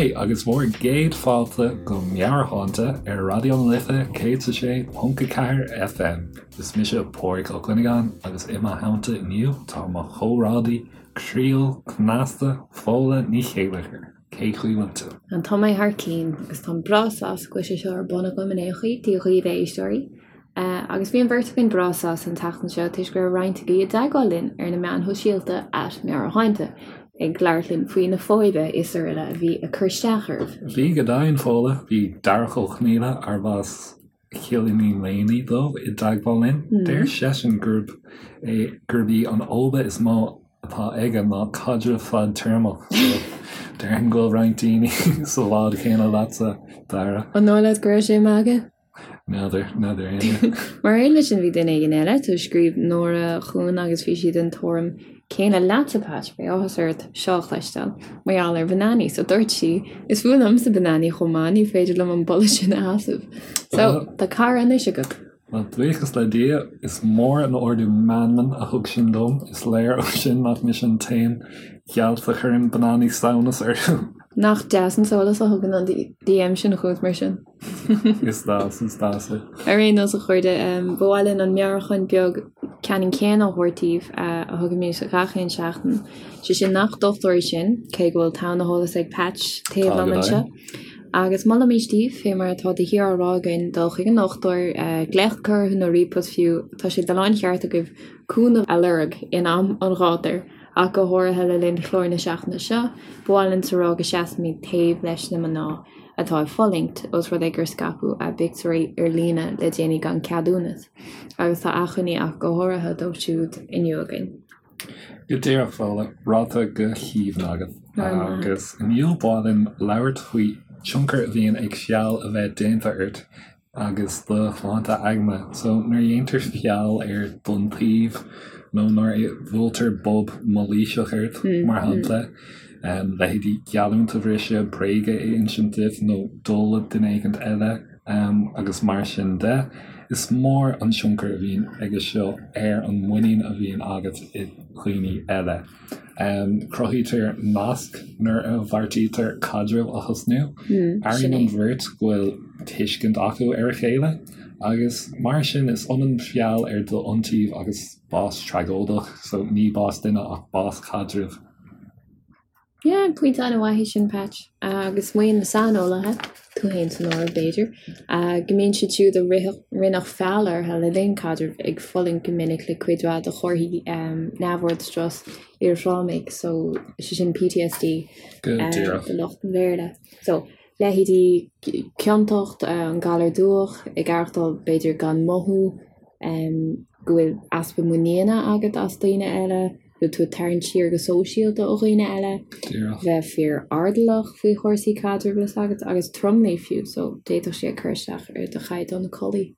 Haigh agus bhur gcéad fáilte go Meabhairshláinte ar Raidió na Life 106.4 FM. Is mise Pádraig Ó Cuinneagáin agus i mo theannta inniu tá mo chomrádaí croíúil cneasta Fódhla Ní Chéilleachair. Cén chaoi a bhfuil tú? Tá mé thar cinn agus táim breá sásta go bhfuil sé seo ar bun agam in aon chaoi. Dia dhaoibh a éisteoirí. Agus bhí an bheirt againn breá sásta an tseachtain seo toisc go raibh roinnt agaibh i dteagmháil linn ar na meáin shóisialta @meabhairshláinte ag labhairt linn faoi na fadhbanna is araile a bhí ag cur isteach oraibh. Bhí go deimhin, Fódhla. Bhí Darach Ó Conaola, arb as Cill Iníon Léime dó, i dteagmháil linn. Deir seisean gurb é gurb í an fhóibe is mó atá aige ná caidreamh fadtéarmach. So déarfainn go bhfuil roinnt daoine sa bhád chéanna leatsa, Dara. An dóigh leat go raibh sé ag magadh? N'fheadar, n'fheadar éinne. Mar aon leis sin bhí duine éigin eile, so scríobh Nóra chugainn agus bhí sí den tuairim céanna leatsa Patch, beidh áthas ort seo a chloisteáil, mar gheall ar bhananaí, so dúirt sí, is fuath liomsa bananaí chomh maith, ní féidir liom an boladh sin a sheasamh. So, tá cara anois agat. Bhuel, buíochas le Dia, is mór an ardú meanman a thug sin dom, is léir ó sin nach mise an t-aon ghealt a chuireann bananaí samhnas orthu. Nach deas an sólás a thugann an DM sin chugat mar sin? Is deas, is deas é. Ar aon nós, a chairde, ba mhaith linn an meabhrúchán beag ceannann céanna a thabhairt daoibh a thugaimid gach aon seachtain, sé sin nach dochtúirí sinn, cé go bhfuil togha na heolas ag Patch taobh liom anseo. Agus molaimid daoibh, fé mar atá de shíor á rá againn, dul chuig an ndochtúir, glaoch a chur orthu nó ríomhphost fiú, tá sé de láncheart agaibh cúnamh a lorg in am an ghátair, ach go háirithe le linn chlár na seachtaine seo, ba mhaith linn a rá go seasfaimid taobh leis na mná. atá ag fulaingt, ós rud é gur scaipeadh a bpictiúirí ar líne le déanaí gan ceadúnas, agus tá achainí ach go háirithe dóibh siúd inniu againn. Go díreach, Fódhla, ráite go haoibhinn agat. Agus inniu ba mhaith linn labhairt faoi tionchar a bhíonn ag feall a bheith déanta ort agus do shláinte aigne. So nuair a dhéantar feall ar d'iontaoibh nó nuair a bhuailtear bob mailíseach ort, mar shampla, leithéidí geallúint a bhriseadh, bréaga a insint duit nó dul le duine éigint eile agus mar sin de, is mór an tionchar a bhíonn aige seo ar an muinín a bhíonn agat i dhaoine eile. Cruthaítear nasc nuair a bheartaítear caidreamh a thosnú. Airíonn an bheirt go bhfuil tuiscint acu ar a chéile, agus mar sin is ionann feall ar d'iontaoibh agus bás tragóideach, so ní bás duine ach bás caidrimh. Yeah, pointe an-mhaith é sin, Patch. Agus maíonn na saineolaithe, tú féin san áireamh, b'fhéidir, go mbíonn siad siúd a rinneadh feall orthu le linn caidrimh ag fulaingt go minic le cuid mhaith de chomharthaí neamhord strus iarthrámaigh, so sé sin PTSD Go díreach. do lucht an Bhéarla. So, leithéidí ciontacht, an galar dubhach, ag aireachtáil b'fhéidir gan mothú, go bhfuil easpa muiníne agat as daoine eile, go bhfuil tú ag tarraingt siar go sóisialta ó dhaoine eile, bheith fíor-airdeallach faoi chúrsaí caidrimh leis agat agus tromluí fiú, so d'fhéadfadh sé cur isteach ar do chaighdeán codlata.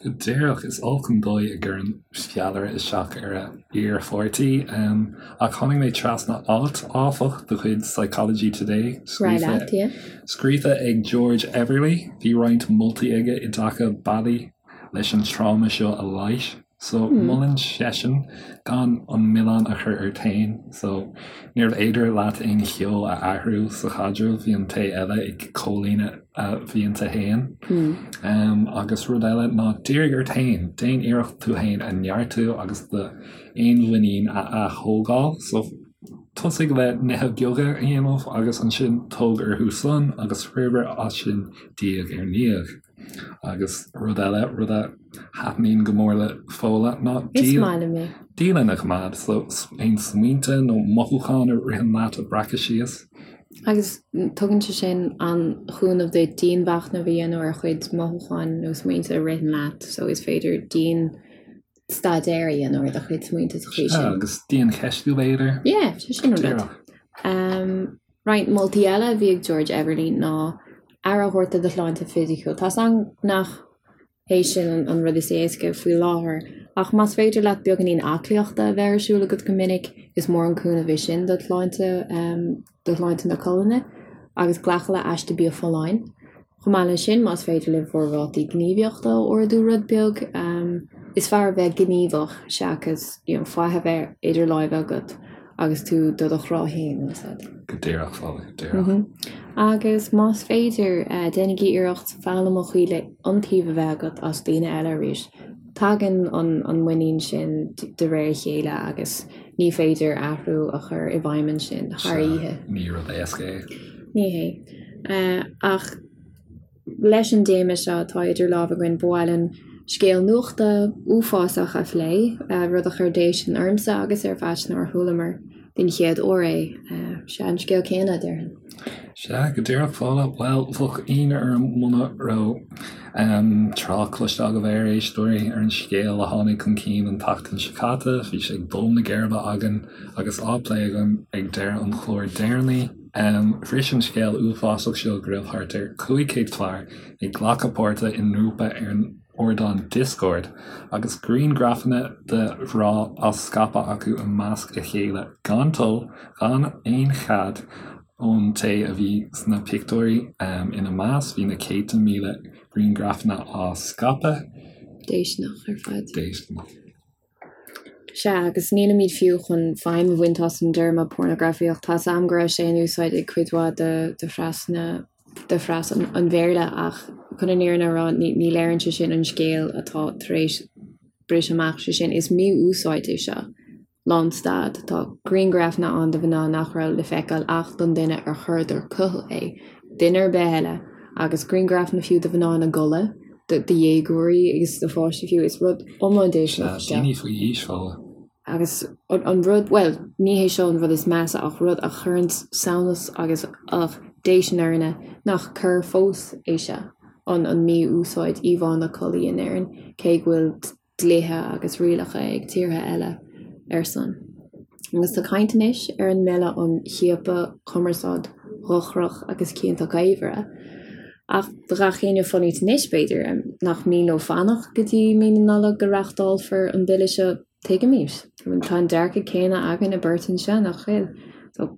Go díreach, is olc an dóigh a gcuireann feallaire isteach ar a iarpháirtí. Ach tháinig mé trasna alt, áfach, de chuid Psychology Today, scríofa ag George Everly. Bhí roinnt moltaí aige i dtaca bealaí leis an tráma seo a leigheas. So, molann seisean gan an milleán a chur ort féin. So, níorbh fhéidir leat aon cheo a athrú sa chaidreamh, bhí an té eile ag comhlíonadh a mhianta féin. Agus rud eile ná dírigh ort féin, déan iarracht tú féin a neartú agus do fhéinmhuinín a ath-thógáil. So, tosaigh le nithe beaga a dhéanamh agus ansin tóg orthu san agus forbair as sin diaidh ar ndiaidh. Agus rud eile, rud a thaitníonn go mór le Fódhla ná dialann a choimeád. So aon smaointe nó mothúcháin a ritheann leat a bhreacadh síos. Agus tugann sé sin an-chúnamh duit dianmhachnamh a dhéanamh ar chuid mothúcháin nó smaointe a ritheann leat. So is féidir dian-staidéar a dhéanamh ar do chuid smaointe sa chaoi sin. Agus diancheistiú b'fhéidir. Yeah, sé sin an rud. Roinnt moltaí eile a bhí ag George Everly ná aire a thabhairt do do shláinte fisiciúil. Tá's agam nach hé sin an rud is éasca faoi láthair, ach más féidir leat beagáinín aclaíochta a bheith ar siúl agat go minic, is mór an cúnamh é sin do shláinte, do shláinte na colainne, agus glacadh le aiste bia folláin. Chomh maith leis sin, más féidir libh bhur rátaí gníomhaíochta a ardú rud beag, is fearr a bheith gníomhach seachas you know faic a bheith idir láimhe agat. agus tú do do chrá féin, bhfuil a fhios agat. Go díreach, Fódhla, go díreach. Agus más féidir, déanaigí iarracht foghlaim an chaoi le iontaoibh a bheith agat as daoine eile arís. Tagann an muinín sin de réir a chéile agus ní féidir athrú a chur i bhfeidhm ansin thar oíche. Ní rud éasca é. Ní hé. Ach leis an dtéama seo atá idir lámha againn, ba mhaith linn scéal nuachta uafásach a phlé, rud a chuir déistin ormsa agus ar Phatch nuair a chualamar den chéad uair é. Sea, an scéal céanna, déarfainn. Sea, go díreach, Fódhla. Bhuel, bheadh ionadh orm muna raibh trácht cloiste agaibh a éisteoirí, ar an scéal a tháinig chun cinn an tseachtain seo caite. Bhí sé ag dó na geirbe againn agus á phlé againn ag deireadh an chláir deireanaigh. Bhris an scéal uafásach seo go raibh thart ar 500 fear ag glacadh páirte i ngrúpa ar an ardán Discord agus grianghrafanna de mhná á scaipeadh acu i measc a chéile gan toil, gan aon chead ón té a bhí sna pictiúirí. Ina measc, bhí na céadta míle grianghrafanna á scaipeadh. Déistineach ar fad. Déistineach. Sea, agus nílimid fiú chun feidhm a bhaint as an dtéarma pornagrafaíocht. Tá's a'm go raibh sé in úsáid ag cuid mhaith de de phreas na de phreas an Bhéarla ach chun an fhírinne a rá ní ní léiríonn sé sin an scéal atá tar éis briseadh amach, sé sin is mí-úsáid é seo. Lánstad. Tá grianghrafanna ann de mhná nach raibh le feiceáil ach don duine ar chuireadar chucu é, duine ar bith eile, agus grianghrafanna fiú de mhná ina gcodladh, de dhéagóirí agus de pháistí fiú. Is rud iomlán déistineach é seo. Daoine faoi aois, Fódhla. Agus an rud, bhuel, ní hé seo an rud is measa ach rud a chuireann samhnas agus ugh, déistin orainne nach coir fós é seo, an mí-úsáid íomhánna collaí in Éirinn, cé go bhfuil dlíthe agus rialacha ag tíortha eile ar son. Agus tá caint anois ar an mBille um Chiapadh, Cumarsáid Dhochrach agus Cionta Gaolmhara. Ach do gach éinne fanacht anois, b'fhéidir, nach mian leo fanacht go dtí mí na Nollag go reachtálfar an bille seo, tuigimid. Tá an dearcadh céanna againne beirt anseo, nach bhfuil? So,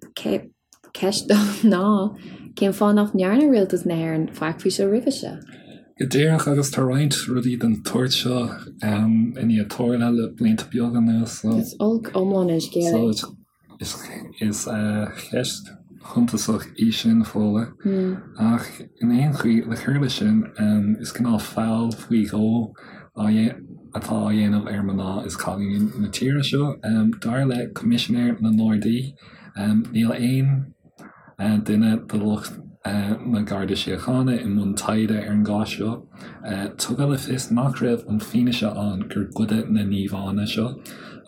Ceist ná, cén fáth nach ndearna Rialtas na hÉireann faic faoi seo roimhe seo? Go díreach, agus tá roinnt rudaí den tsórt seo i ndiaidh tarlú le blianta beaga anuas, so. Is olc iomlán an scéal é. So, is ceist shuntasach í sin, Fódhla. Ach in aon chaoi, le cur leis sin, is cineál feall faoi dhó atá á dhéanamh ar mná is cailíní na tíre seo. Dar le Coimisinéir na nGardaí, Níl aon duine de lucht na Garda Síochána i mbun taighde ar an gcás seo. Tugadh le fios nach raibh an fianaise ann gur goideadh na n-íomhánna seo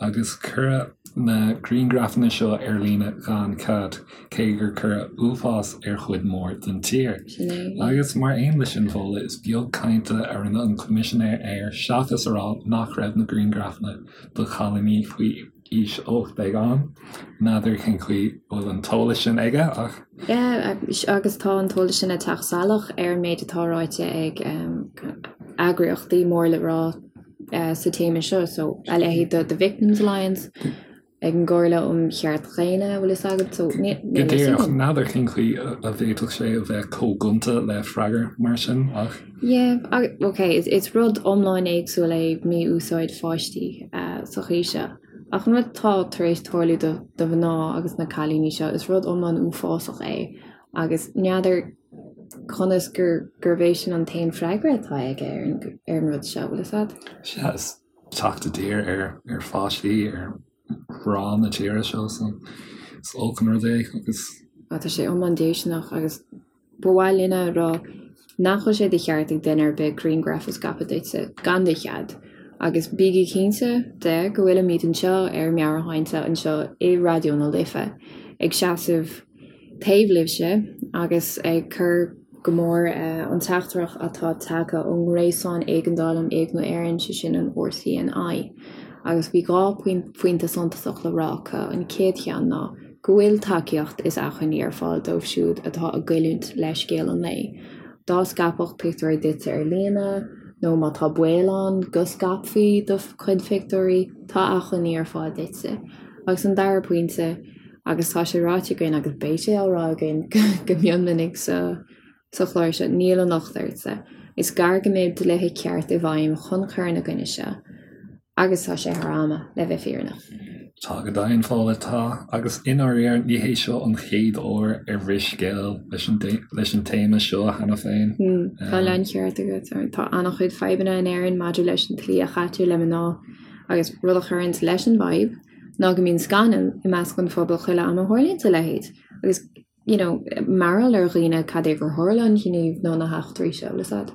agus cuireadh na grianghrafanna seo ar líne gan cead, cé gur cuireadh uafás ar chuid mhór den tír. Agus mar aon leis sin, Fódhla, is beag cainte a rinne an Coimisinéir air seachas a rá nach raibh na grianghrafanna de chailíní faoi aois 18 ann. N'fheadar cén chaoi a bhfuil an t-eolas sin aige ach. Yeah, agus tá an t-eolas sin ag teacht salach ar an méid atá ráite ag eagraíochtaí mór le rá sa téama seo, so a leithéid de The Victims Alliance, ag an gComhairle um Chearta Daonna, bhfuil fhios agat, so níl Go díreach, n'fheadar cén chaoi a bhféadfadh sé a bheith chomh gonta le freagra mar sin ach. Yeah, ok, is rud iomlán éagsúil é mí-úsáid pháistí sa chaoi seo. Ach an rud atá tar éis tarlú do do mhná agus na cailíní seo, is rud iomlán uafásach é agus n'fheadar conas gur gurb é sin an t-aon freagra atá aige ar an ar an rud seo, bhfuil fhios agat? Sea, is teacht i dtír ar ar pháistí, ar mhná na tíre seo, so is olc an rud é agus. Tá sé iomlán déistineach agus Ba mhaith linn a rá nach bhfuil sé de cheart ag duine ar bith grianghraf a scaipeadh duitse gan do chead, agus bígí cinnte de go bhfuilimid anseo ar Meabhairshláinte anseo i Raidió na Life ag seasamh taobh libhse agus ag cur go mór an teachtaireacht atá tagtha ón nGréasán Éigeandála um Éigniú Éireann, sé sin an RCNI. Agus bhí 2 phointe suntasach le rá acu, an chéad cheann ná. go bhfuil tacaíocht is acmhainní ar fáil dóibh siúd atá ag goilliúint le scéal an lae. Dá scaipfeadh pictiúirí duitse ar líne, nó má tá baol ann go scaipfí do chuid pictiúirí, tá acmhainní ar fáil duitse. Agus an dara pointe, agus tá sé ráite againn agus beidh sé á rá againn go mion minic sa sa chlár seo, níl an locht ortsa. Is gar go mbeidh dlíthe ceart i bhfeidhm chun cur ina gcoinne seo, agus tá sé thar ama, le bheith fírinneach. Tá go deimhin, Fódhla, tá. Agus i ndáiríre, ní hé seo an chéad uair ar bhris scéal leis an leis an téama seo cheana féin. Tá an láncheart agat. Tá an-chuid fadhbanna in Éirinn maidir leis an tslí a chaitear le mná agus rud a chuireanns leis an bhfadhb ná go mbíonn scannal i measc an phobail chuile am a tharlaíonns a leithéid agus you know, mearbhall ar dhaoine cad é gur tharla an gníomh nó na heachtraí seo, bhfuil a fhios a'd.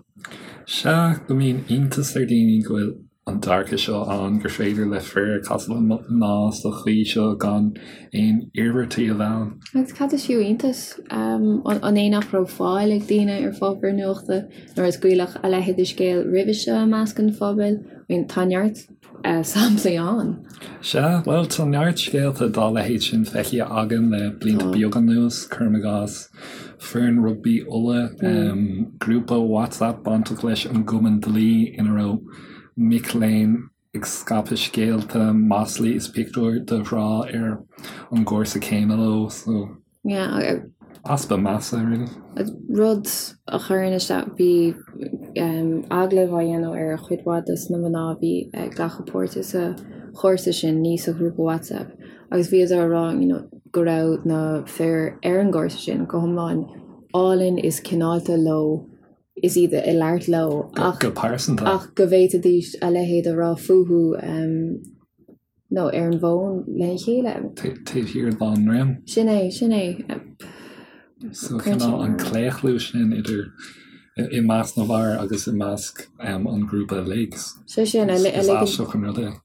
Sea, go mbíonn iontas ar dhaoine go bhfuil an dearcadh seo ann, gur féidir le fir casadh le mná sa chaoi seo gan aon iarmhairtí a bheith ann. Agus cad is fiú iontas? An é nach raibh fáil ag daoine ar pháipéar nuachta nuair a scaoileadh a leithéid de scéal roimhe seo i measc an phobail? I mean, tá neart samplaí ann. Sea, bhuel, tá neart scéalta dá leithéid sin feicthe againn le blianta beaga anuas, cuirim i gcás, foireann rugbaí Uladh, grúpa WhatsApp bainteach leis an gCumann Dlí ina raibh mic léinn ag scaipeadh scéalta, maslaí is pictiúir de ghrá ar an gcúrsa céanna leo, so. Yeah. Easpa measa, really. Rud a chuireann isteach, bhí agallamh á dhéanamh ar chuid mhaith de na mná a bhí ag glacadh páirte sa chúrsa sin, ní sa ghrúpa WhatsApp, agus bhíodar á rá you know go raibh na fir ar an gcúrsa sin go hiomlán álainn is cineálta leo is iad ag labhairt leo ach go pearsanta. ach go bhféadfaidís a leithéid a rá fúthu nó ar an bhfón lena chéile. Taobh thiar dá ndroim. Sin é, sin é. So cineál an claochlú sin idir i measc na bhfear agus i measc an ghrúpa uilig. Sé sin, a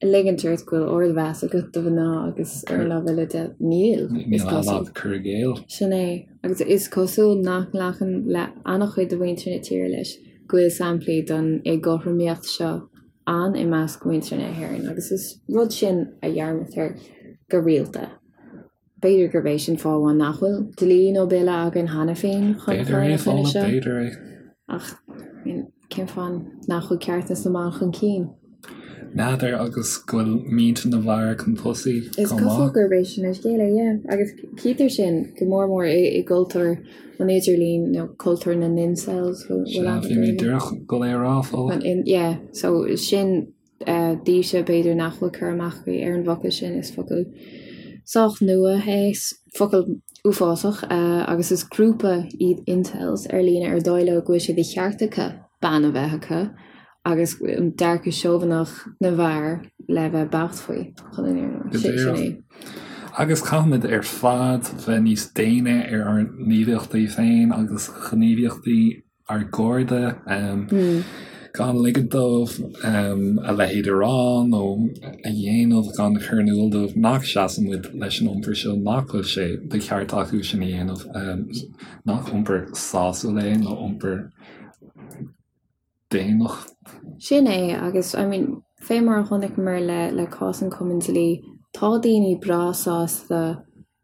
ligint ort go bhfuil ardmheas agat do mhná agus ar an lámh eile de, níl, is cosúil. Cur i gcéill. Sin é, agus is cosúil nach nglacann le an-chuid de mhuintir na tíre leis go bhfuil samplaí den éagothromaíocht seo ann i measc mhuintir na hÉireann agus is rud sin a dhearmadtar go rialta. B'fhéidir gurb é sin fáth amháin nach bhfuil dlí nó bille againn cheana féin chun cur ina choinne seo. B'fhéidir é. Ach cén fáth nach bhfuil ceartas na mban chun cinn? N'fheadar agus go bhfuil mianta na bhfear chun tosaigh chomh maith. Is cosúil gurb é sin an scéal é, yeah. Agus cítear sin go mór mór i gcultúr an idirlín nó cultúr na n-incels. Sea, bhí mé díreach ag dul é a rá, Fódhla. Yeah, so sin daoibhse b'fhéidir nach bhfuil cur amach agaibh ar an bhfocal sin, is focal sách nua é, focal uafásach, agus is grúpa iad incels ar líne ar dóigh leo go bhfuil sé de cheart acu bean a bheith acu agus an dearcadh seobhaineach na bhfear le bheith beacht faoi, chun an fhírinne a rá. Sin é. Agus caithfimid ar fad bheith níos déine ar ár ngníomhaíochtaí féin agus gníomhaíochtaí ár gcairde, gan ligean dóibh a leithéid a rá nó a dhéanamh, gan cur in iúl dóibh nach seasann muid leis an iompar seo, nach bhfuil sé de cheart acu sin a dhéanamh, nach iompar sásúil é nó iompar daonnach. Sin é, agus I mean, fé mar a chonaiceamar le le cás an Chumainn Dlí, tá daoine breá sásta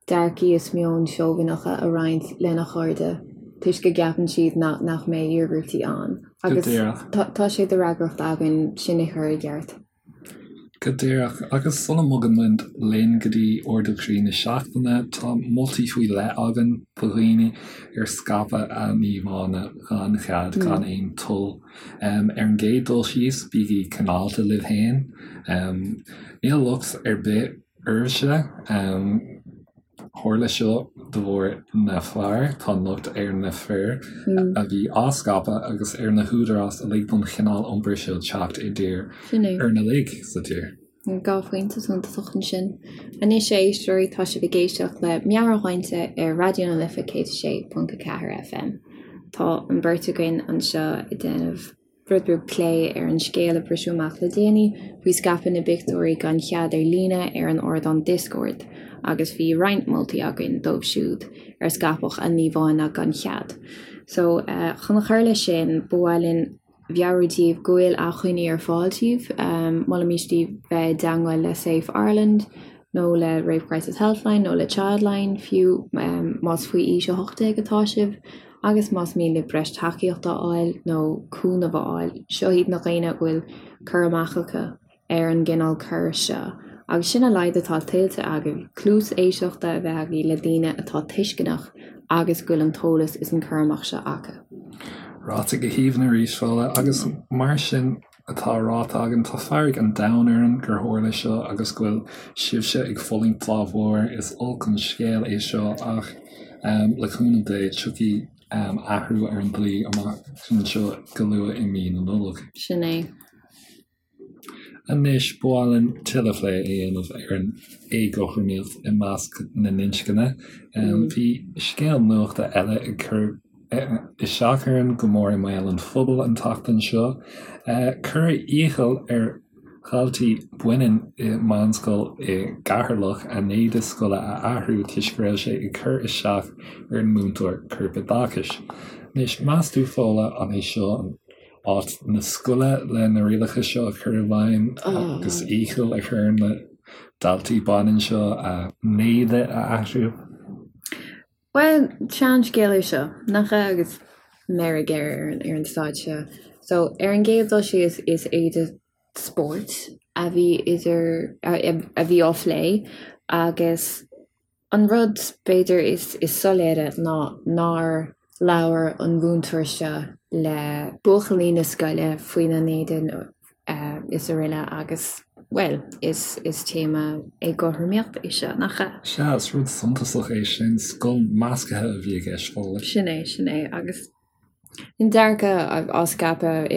dearcaí is meoin seobhaineacha a roinnt lena chairde toisc go gceapann siad nach mbeidh iarmhairtí ann. Agus tá sé de fhreagracht againn sin a chur i gceart. Go díreach. Agus sula mbogann muid linn go dtí ardú croí na seachtaine, tá moltaí faoi leith againn do dhaoine ar scaipeadh a n-íomhánna gan chead, gan aon toil. Ar an gcéad dul síos, bígí cineálta libh féin. Níl locht ar bith oraibhse. Tharla seo de bharr na bhfear, tá an locht ar na fir a bhí á scaipeadh agus ar na húdaráis a lig don chineál iompair seo teacht i dtír orainn uilig sa tír. 2 phointe suntasach ansin. Anois, a éisteoirí, tá sibh ag éisteacht le Meabhairshláinte ar Raidió na Life 106.4 FM. Tá an bheirt againn anseo ag déanamh. rud beag plé ar an scéal a briseadh amach le déanaí faoi scaipeadh na bpictiúirí gan chead ar líne ar an ardán Discord agus bhí roinnt moltaí againn dóibh siúd ar scaipeadh a n-íomhánna gan chead. So, chun cur leis sin, ba mhaith linn mheabhrú daoibh go bhfuil acmhainní ar fáil daoibh. Molaimís daoibh bheith i dteangmháil le Safe Ireland nó le Rape Crisis Helpline nó le Childline fiú más faoi aois 18 atá sibh. Agus más mian libh breis tacaíochta a fháil nó cúnamh a fháil, seo iad na daoine a bhfuil cur amach acu ar an gcineál coir seo. Agus sin a laghad atá tuillte agaibh, cluas éisteachta a bheith agaibh le daoine atá tuisceanach agus go bhfuil an t-eolas is an cur amach seo acu. Ráite go haoibhinn arís, Fódhla, agus mar sin. atá ráite againn, tá fearg an domhain orainn gur tharla seo agus go bhfuil sibhse ag fulaingt dá bharr. Is olc an scéal é seo ach le cúnamh Dé tiocfaidh athrú ar an dlí amach anseo go luath i mí na Nollag. Sin é. Anois, ba mhaith linn tuilleadh plé a dhéanamh ar an éagothromaíocht i measc na n-inscne. Bhí scéal nuachta eile ag cur isteach orainn go mór i mbéal an phobail an tseachtain seo. Cuireadh iachall ar dhaltaí baineann i meánscoil i gCeatharlach a n-éide scoile a athrú toisc go raibh sé ag cur isteach ar an múinteoir corpoideachais. Anois, meas tú, Fódhla, an é seo an áit na scoile le na rialacha seo a chur i bhfeidhm agus iachall a chur ar na daltaí baineann seo a n-éide a athrú. Bhuel, seanscéal é seo, nach ea, agus meirg air ar an staid seo. So, ar an gcéad dul síos, is éide spóirt a bhí idir, a bhí á phlé agus An rud, b'fhéidir, is soiléire ná nár labhair an múinteoir seo le buachaillí na scoile faoina n-éide is araile agus, bhuel, is téama éagothromaíochta é seo, nach ea? Sea, is rud suntasach é sin, scoil measctha a bhí i gceist, Fódhla. Sin é, sin é, agus An dearcadh á scaipeadh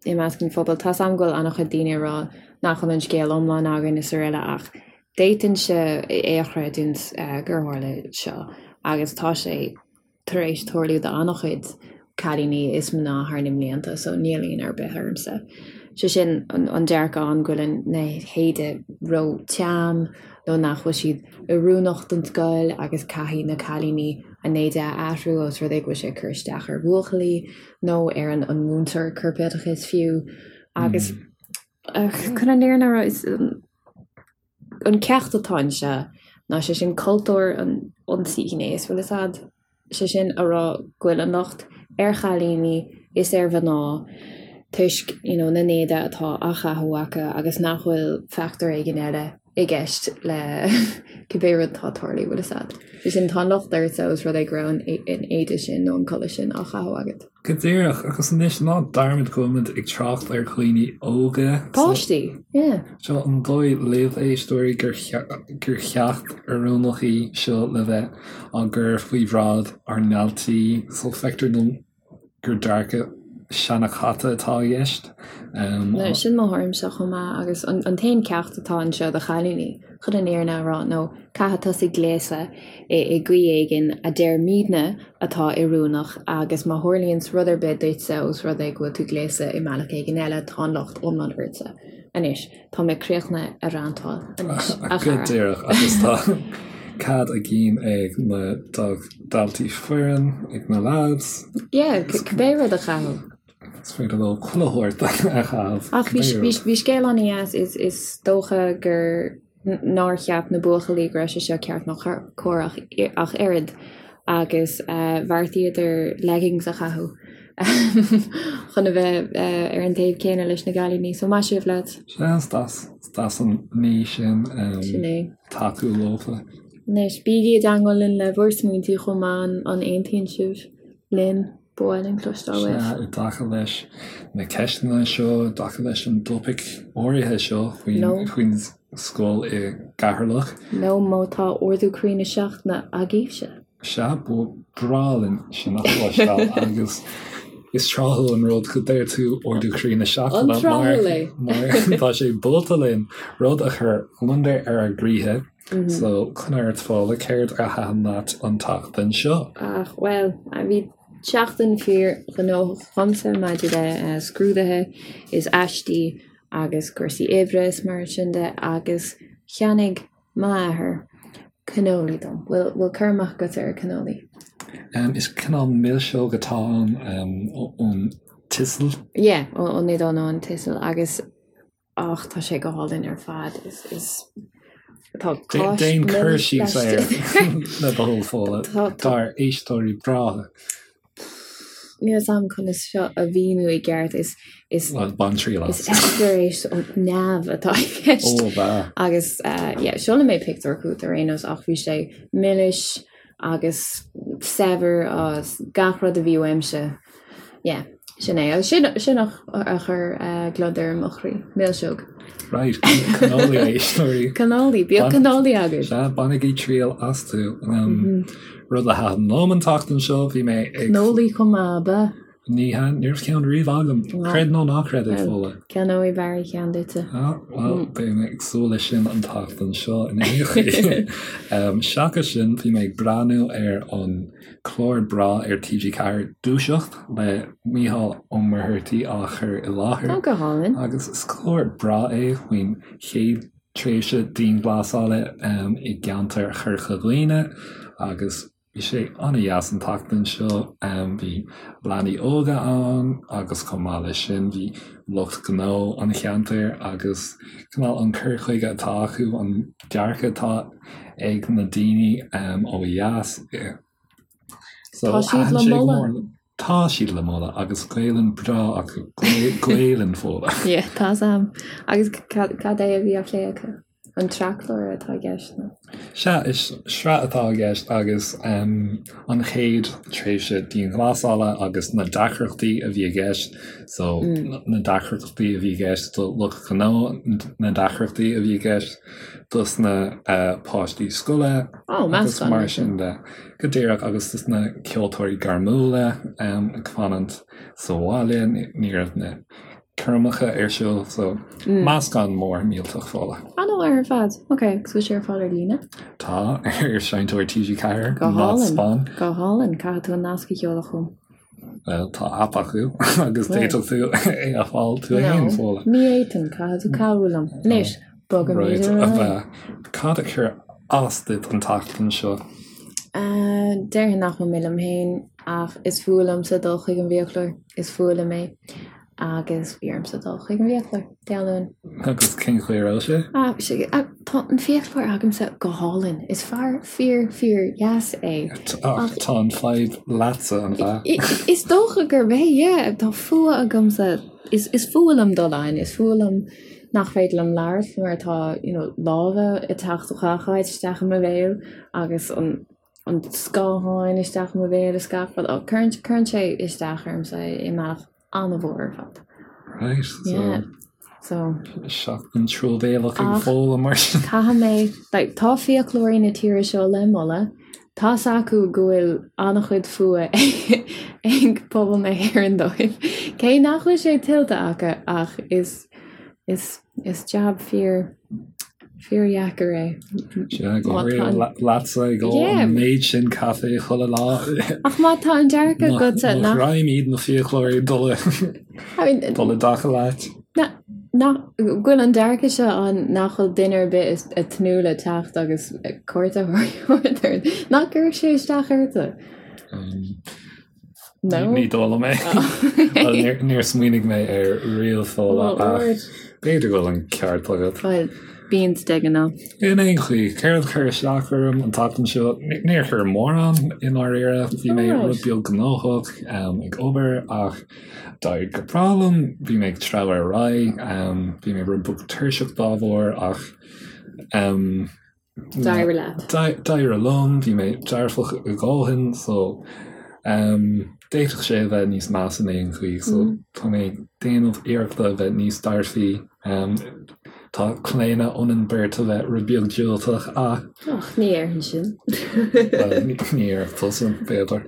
i measc an phobail. Tá's a'm go bhfuil an-chuid daoine ag rá nach bhfuil an scéal iomlán againn is araile ach d'fhéadfainnse é a chreidiúint gur tharla seo agus tá sé tar éis tarlú do an-chuid cailíní is mná thar na mblianta so níl ionadh ar bith ormsa. Sé sin an dearcadh ann go bhfuil na héide ró-teann nó nach bhfuil siad oiriúnach don scoil agus caithfidh na cailíní a n-éide a athrú os rud é go bhfuil sé ag cur isteach ar bhuachaillí nó ar an múinteoir corpoideachais fiú agus chun an fhírinne a rá is an ceacht atá anseo ná sé sin cultúr an ionsaí gnéis bhfuil fhios a'd? sé sin a rá go bhfuil an locht ar chailíní is ar mhná toisc you know na n-éide atá á chaitheamh acu agus nach bhfuil factor éigin eile i gceist le cibé rud atá ag tarlú, bhfuil fhios a'd. Sé sin tá an locht ortsa os rud é go raibh an éide sin nó an culaith sin á chaitheamh agat. Go díreach, agus anois ná dearmad go bhfuilimid ag trácht ar dhaoine óga. Páistí, yeah. Seo an dóigh libh, a éisteoirí, gur cheacht oiriúnach í seo le bheith á gcur faoi bhráid ár ndaltaí, so feictear dom gur dearcadh seanchaite atá i gceist. Sin mo thuairimse chomh maith agus an t-aon ceacht atá anseo do chailíní, chun an fhírinne a rá, nó caithfidh tusa gléasadh i gcaoi éigin a deirimidne atá oiriúnach agus má tharlaíonns rud ar bith duitse os rud é go bhfuil tú gléasta i mbealach éigin eile, tá an locht iomlán ortsa. Anois, tá mé críochnaithe ag rantáil anois, a chara. Go díreach, agus tá cead a gcinn ag na daltaí fireann, ag na lads. Yeah, cibé rud a chaitheamh. Is féidir leo chuile shórt a chaitheamh. Ach bhí scéal an-dheas, is dócha gur nár cheap na buachaillí go raibh sé seo ceart nó cóir ach oiread agus bheartaíodar leggings a chaitheamh chun a bheith ar an taobh céanna leis na gcailíní. So maith sibh lads. Sea, is deas, is deas an ní sin Sin é. tacú leofa. Anois, bígí i dteangmháil linn le bhur smaointí chomh maith, an aontaíonn sibh linn? Ba mhaith linn cloisteáil uaibh. Sea, i dtaca leis na ceisteanna seo, i dtaca leis an dtopaic áirithe seo faoin scoil i gCeatharlach. Nó má tá ardú croí na seachtaine agaibhse. Sea, ba bhreá linn sin a chloisteáil agus is tráthúil an rud go deir tú ardú croí na seachtaine mar tá sé buailte linn rud a chuir gliondar ar ár gcroíthe. So, coinnigh ort Fódhla, céard a thaitin leat an tseachtain seo? Ach, bhuel, bhí seachtain fíor ghnóthach agamsa maidir le scrúduithe is aistí agus cúrsaí oibre is mar sin de agus cheannaigh m'athair cannoli dom. Bhfuil, bhfuil cur amach agat ar cannoli? Is cineál milseog atá ann ón tSicil. Yeah, ón Iodáil nó an tSicil agus Ach tá sé go hálainn ar fad. Is, is, tá cáis Déan cur síos air le do thoil Fódhla dár éisteoirí breátha. Níl fhios a'm conas seo a mhíniú i gceart. Is, is, Bhuel, bain triail as. Is eispéireas ó neamh atá i gceist. Ó, bha. Agus, yeah, seolfaidh mé pictiúr chugat ar aon nós ach bhí sé milis agus saibhir agus gach rud a bhí uaimse. Yeah. Sin é. Agus sin, sin a a chuir gliondar i mo chroí. Milseog. Right, cannoli a éisteoirí. Cannoli, bíodh cannoli agaibh. Sea, bainigí triail astu. Rud a thaitin liom an tseachtain seo, bhí mé ag. Cannoli chomh maith, ab ea? Ní hea, ní raibh ceann riamh agam. Creid nó ná creid, a Fódhla. Ceannóidh Barry ceann duitse. Ah, bhuel, beidh mé ag súil leis sin an tseachtain seo in aon chaoi. Seachas sin, bhí mé ag breathnú ar an clár breá ar TG4, Dúiseacht, le Mícheál Ó Muircheartaigh á chur i láthair. Tá go hálainn. Agus is clár breá é faoin chéad tréimhse dianghlasála i gceantar Chorca Dhuibhne agus Bhí sé an-dheas an tseachtain seo. Bhí leanaí óga ann agus chomh maith leis sin bhí lucht gnó an cheantair agus cineál an cur chuige atá acu, an dearcadh atá ag na daoine ó dheas. So Tá siad le moladh. Tá siad le moladh agus Gaelainn breá acu, Gaelainn Fódhla. Yeah, tá 's a'm. Agus cad é a bhí á phlé acu? An sraithchlár atá i gceist nó? Sea, is sraith atá i gceist agus an chéad tréimhse dianghlasála agus na deacrachtaí a bhí i gceist, so na deacrachtaí a bhí i gceist do lucht gnó, na deacrachtaí a bhí i gceist dos na páistí scoile agus mar sin de. Go díreach, agus dos na ceoltóirí gairmiúla ag fanacht sa bhaile, ní raibh na coirmeacha ar siúl so meascán mór millteach Fódhla. An-mhaith ar fad. Ok, agus bhfuil sé ar fáil ar líne? Tá, ar Seinnteoir TG4, Go hálainn, go hálainn, caithfidh tú an nasc a sheoladh chugam. Bhuel, tá aip acu agus d'fhéadfadh tú é a fháil tú féin, Fódhla. Ní fhéadfainn, caithfidh tú cabhrú liom. Anois, bogaimid ar aghaidh. Cad a chuir as duit an tseachtain seo? Déarfainn nach bhfuil mé liom féin ach is fuath liomsa dul chuig an bhfiaclóir, is fuath liom é. Agus bhí ormsa dul chuig an bhfiaclóir Dé Luain. Agus cén chaoi a raibh sé? Ah, sé, tá an fiaclóir agamsa go hálainn. Is fear fíor, fíor dheas é. Ach tá an fadhb leatsa, an ea? Is dócha gurb é, yeah. Tá fuath agamsa, is, is fuath liom dul ann, is fuath liom nach féidir liom labhairt mar tá, you know, lámha ag teacht ó gach áit isteach i mo bhéal agus an, an scáthán isteach i mo bhéal is gach rud. Oh, cuireann, cuireann sé isteach ormsa i mbealach an-mhór ar fad. Right, so. Yeah. So. Seachtain truamhéalach ag Fódhla mar sin. Caithfidh mé, like, tá fiaclóirí na tíre seo le moladh. Tá's acu go bhfuil an-chuid fuath ag pobal na hÉireann dóibh. Cé nach bhfuil sé tuillte acu ach is, is, Is jab fíor, fíordheacair é. Sea, go háirithe leatsa ag ól an méid sin caife chuile lá. Ach má tá an dearcadh agatsa nach. Mo ghreim iad na fiaclóirí dul i dul i dtaca leat. Nach go bhfuil an dearcadh seo ann nach bhfuil duine ar bith ag tnúth le teacht agus cuairt a thabhairt ort. Nach gcuirfeadh sé isteach ortsa? No. Ní dóigh liom é. Well, níor smaoinigh mé air riamh Fódhla ach b'fhéidir go bhfuil an ceart agat. Bhuel, bíonn de ghnáth. In aon chaoi, céard a chuir isteach orm an tseachtain seo? Níor chuir mórán i ndáiríre. Bhí mé rud beag gnóthach ag obair ach d'éirigh go breá liom. Bhí mé ag treabhadh ar aghaidh. Bhí mé rud beag tuirseach dá bharr ach D'éirigh leat. D'éirigh liom, bhí mé dearfach a dhóthain so d'fhéadfadh sé a bheith níos measa in aon chaoi so tá mé ag déanamh iarrachta a bheith níos dearfaí. Tá claonadh ionainn beirt a bheith rud beag diúltach ach. Ach ní déarfainn sin. Bhuel, ní déarfadh tusa, b'fhéidir,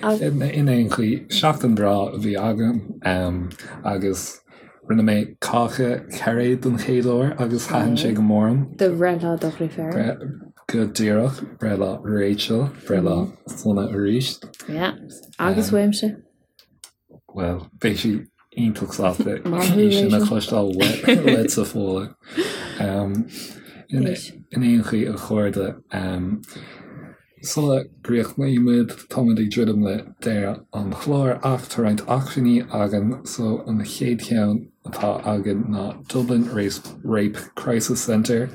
ach in aon chaoi, seachtain bhreá a bhí agam agus. Rinne mé cáca cairéad don chéad uair agus thaitin sé go mór liom. Do bhreithlá do dheirféar. Go díreach, breithlá Rachel, breithlá sona arís. Yeah, agus uaimse. Bhuel, beidh sí iontach sásta í sin a chloisteáil uaitse Fódhla. In aon chaoi a chairde, Sula gcríochnaímid, táimid ag druidim le deireadh an chláir ach tá roinnt acmhainní againn so an chéad cheann atá againn ná Dublin Rape Crisis Centre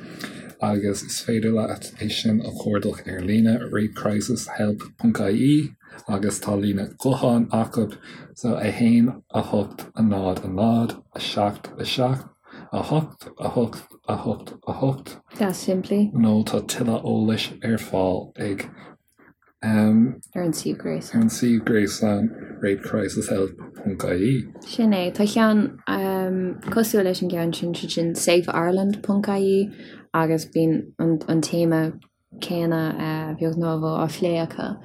agus is féidir leat é sin a chuardach ar líne rapecrisishelp.ie agus tá líne gutháin acu so 1 8 0 0 7 7 8 8 8 8. Deas simplí. Nó tá tuilleadh eolais ar fáil ag. Ar an suíomh gréasáin. Ar an suíomh gréasáin rapecrisishelp.ie. Sin é. Tá ceann cosúil leis an gceann sin, sé sin safeireland ponc ie agus bíonn an téama céanna a bheag nó a mhór á phlé acu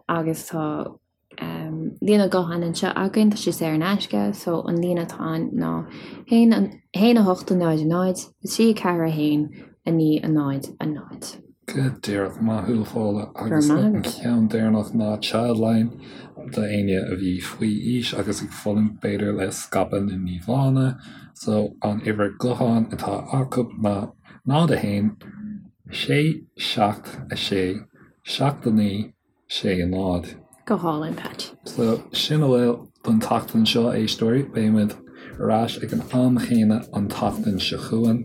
agus tá líne gutháin anseo againn, tá sé saor in aisce, so an líne atá ann ná 1 1 8 0 0 3 4 1 9 0 0. Go díreach, maith thú a Fódhla. Agus an ceann deireanach ná Childline do éinne a bhí faoi aois agus ag fulaingt b'fhéidir le scaipeadh na n-íomhánna. So an uimhir gutháin atá acu ná 0 1 6 7 6 7 9 6 0. Go hálainn, Patch. So, sin a bhfuil don tseachtain seo, a éisteoirí. Beidh muid ar ais ag an am chéanna an tseachtain seo chugainn,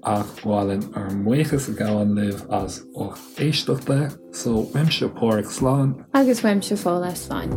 ach ba mhaith linn ár mbuíochas a ghabháil libh as ucht éisteachta. So, uaimse Páraic, slán. Agus uaimse Fódhla, slán.